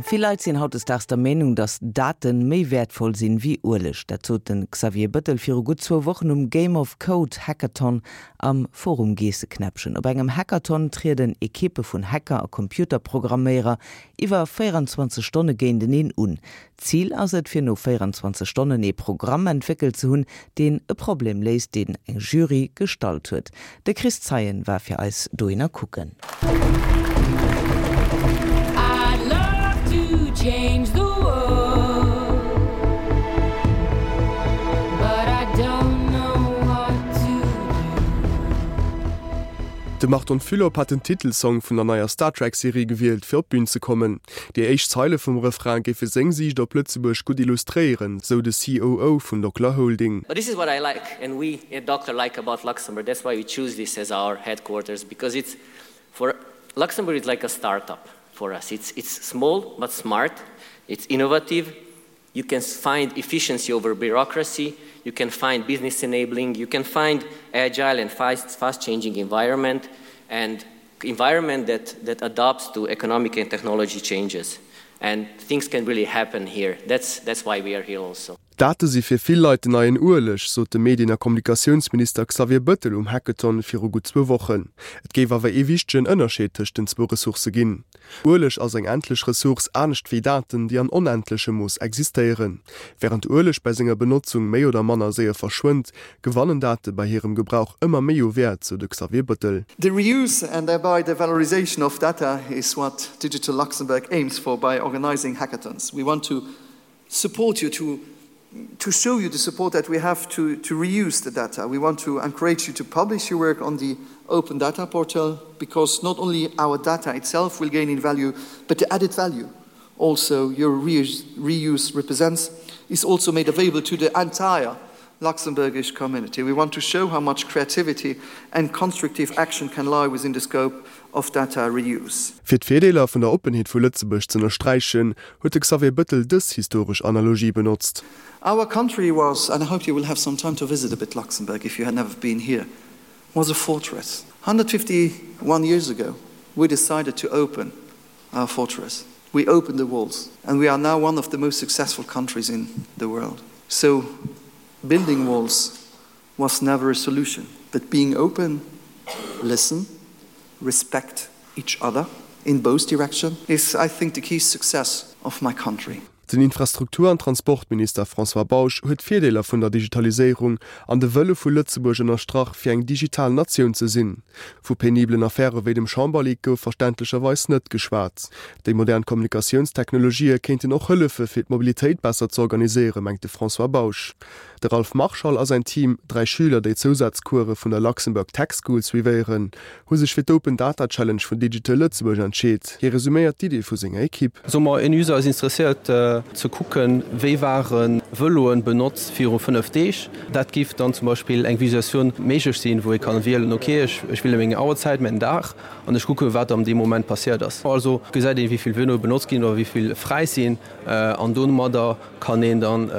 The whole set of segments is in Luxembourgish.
Vill Leit sinn hautdesdaags der Meenung, datt Daten méi wäertvoll sinn wéi Ueleg. Dat sot de Xavier Bëttel viru gutt zwou Wochen um Game of Code Hackathon am Forum Geesseknäppchen. Op engem Hackathon trieden Ekippe vun Hacker a Computerprogramméierer iwwer 24 Stonne géinteneen un. Zil ass et, fir no 24 Stonnen ee Programm entwéckelt ze hunn, deen e Problem léist, deen eng Jury gestallt huet. De Chris Zeien war fir eis dohinner kucken. De Marton Fülop hat den Titelsong vun der neier Star Trek Serie gewielt fir op d'Bün ze kommen. Déi éischt Zeile vum Refrain géife seng Siicht op Lëtzebuerg gutt illustréieren, sou de COO vun Docler Holding. But this is what I like and we at Docler like about Luxembourg, that's why we choose this as our headquarters because it's for Luxembourg is like a start-up for us, it's it's small but smart, it's innovative, you can find efficiency over bureaucracy, you can find business enabling, you can find agile and fast fast changing environment and environment that that adapts to economic and technology changes and things can really happen here. That's that's why we are here also. D'Date si fir vill Leit den neien Ueleg, sot de Medien a Kommunikatiounsminister Xavier Bëttel um Hackathon viru gutt zwou Wochen. Et géif awer ee wichtegen Ënnerscheed tëscht den zwou Ressourcë ginn. Ueleg ass eng endlech Ressource, anescht wéi Daten, déi an onendlechem Mooss existéieren. Wärend Ueleg bei senger Benotzung méi oder manner séier verschwënnt, gewannen Date bei hirem Gebrauch ëmmer méi u Wäert, sou de Xavier Bëttel. The reuse and thereby the valorization of data is what Digital Luxembourg aims for by organizing hackathons. We want to support you to to show you the support that we have to, to reuse the data. We want to encourage you to publish your work on the open data portal because not only our data itself will gain in value, but the added value also your reuse, reuse represents is also made available to the entire Luxembourgish community. We want to show how much creativity and constructive action can lie within the scope of data reuse. Fir d'Virdeeler vun der Oppenheet vu Lëtzebuerg z'ënnersträichen, huet de Xavier Bëttel dës historesch Analogie benotzt. Our country was, and I hope you will have some time to visit a bit Luxembourg if you had never been here, was a fortress. 151 years ago, we decided to open our fortress. We opened the walls and we are now one of the most successful countries in the world. So building walls was never a solution, but being open, listen, respect each other in both direction is I think the key success of my country. Den Infrastruktur an Transportminister François Bausch huet d'Virdeeler vun der Digitaliséierung an de Wëlle vu Lëtzebuerg ënnerstrach, fir eng digital Natioun ze sinn. Vu penibelen Affäre wéi dem Chamberleak gouf verständlecherweis net geschwat. Déi modern Kommunikatiounstechnologië kéinten och hëllefe fir d'Mobilitéit besser ze organiséieren, mengt de François Bausch. De Ralph Marschall a säin Team, 3 Schüler, déi Zousazcourse vun der Luxembourg Tech School suivéieren, hu sech fir d'Open Data Challenge vun Digital Lëtzebuerg entscheet. Hie resuméiert d'Idee vu senger Ekipp. Soe mer, en User ass interesséiert ze kucken, wéi ware Vëloen benotzt viru 5 Deeg. Dat giff dann zum Beispill eng Visualisatioun méiglech sinn, wou ee kann wielen, ok, ech wiele meng Auerzäit, mäin Dag an ech kucke wat am deem Moment passéiert ass. Also gesäit een, wéi vill Vëloe benotzt ginn oder wéi vill fräi sinn an domadder kann een dann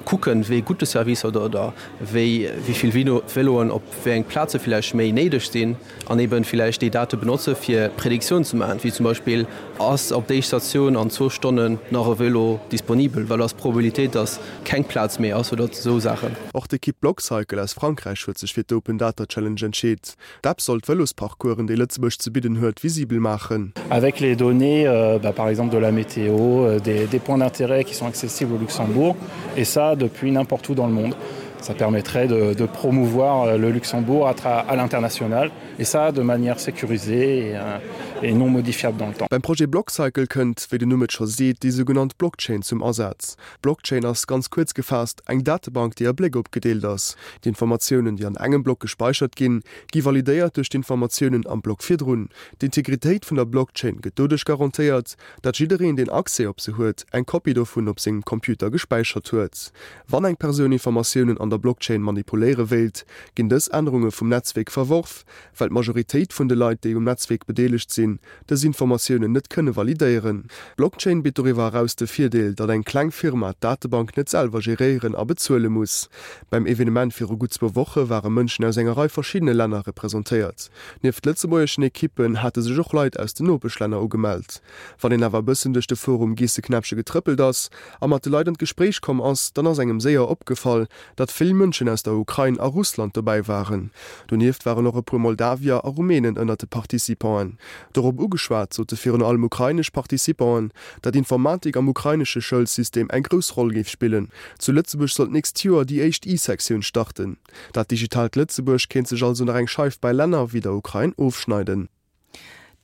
kucken, wéi gutt de Service oder oder wéi wéi vill Véloen op wéi eng Plaze villäicht méi néideg sinn an eben villäicht déi Date benotze fir Prediktioun ze maachen, wéi zum Beispill, ass op déi Statioun an zwou Stonnen nach e Vélo disponibel, wat ass d'Probabilitéit, datt keng Plaz méi ass oder esou Saachen. Och d'Ekipp Blockcycle aus Frankräich huet sech fir d'Open Data Challenge entscheet. D'App soll d'Vëlosparcoursen, déi Lëtzebuerg ze bidden huet, visibel maachen. Avec les données euh, bah, par exemple de la météo, euh, des, des points d'intérêt qui sont accessibles au Luxembourg et ça depuis n'importe où dans le monde. Ça permettrait de, de promouvoir euh, le Luxembourg à, à l'international et ça de manière sécurisée et, euh, et non modifiable dans le temps. Beim Projet Blockcycle kënnt, wéi den Numm et scho seet, déi sougenannt Blockchain zum Asaz. D'Blockchain ass, ganz kuerz gefaasst, eng Datebank, déi a Bléck opgedeelt ass. D'Informatiounen, déi an engem Block gespäichert ginn, gi validéiert duerch d'Informatiounen am Block virdrun. D'Integritéit vun der Blockchain gëtt doduerch garantéiert, datt jiddereen, deen Accès op se huet, eng Kopie dovun op sengem Computer gespäichert huet. Wann eng Persoun Informatiounen an der Blockchain manipuléiere wéilt, ginn dës Ännerunge vum Netzwierk verworf, well d'Majoritéit vun de Leit, déi um Netzwierk bedeelegt sinn. sinn, dës Informatiounen net kënne validéieren. D'Blockchain bitt doriwwer eraus de Virdeel, datt eng kleng Firma d'Datebank net selwer geréieren a bezuele muss. Beim Evenement viru gutt zwou Woche ware Mënschen aus enger Rei verschiddene Länner representéiert. Nieft lëtzebuergeschen Ekippen hate sech och Leit aus den Nopeschlänner ugemellt. Wann een awer e bëssen duerch de Forum Geesseknäppche getrëppelt ass a mat de Leit an d'Gespréich komm ass, dann ass engem séier opgefall, datt vill Mënschen aus der Ukrain a Russland dobäi waren. Donieft waren och e puer Moldawier a Rumänen ënnert de Participanten. Dorop ugeschwat, sote virun allem ukrainesch Participanten, datt Informatik am ukrainesche Schoulsystem eng grouss Roll géif spillen. Zu Lëtzebuerg soll d'nächst Joer déi éischt I-Sektioun starten. Dat digitaalt Lëtzebuerg kéint sech also nach eng Scheif bei Länner wéi der Ukrain ofschneiden.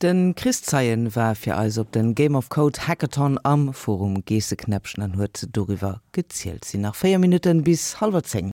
De Chris Zeien war fir eis op den Game of Code Hackathon am Forum Geesseknäppchen an huet doriwwer gezielt. Sinn nach 4 Minutten bis hallwer 10.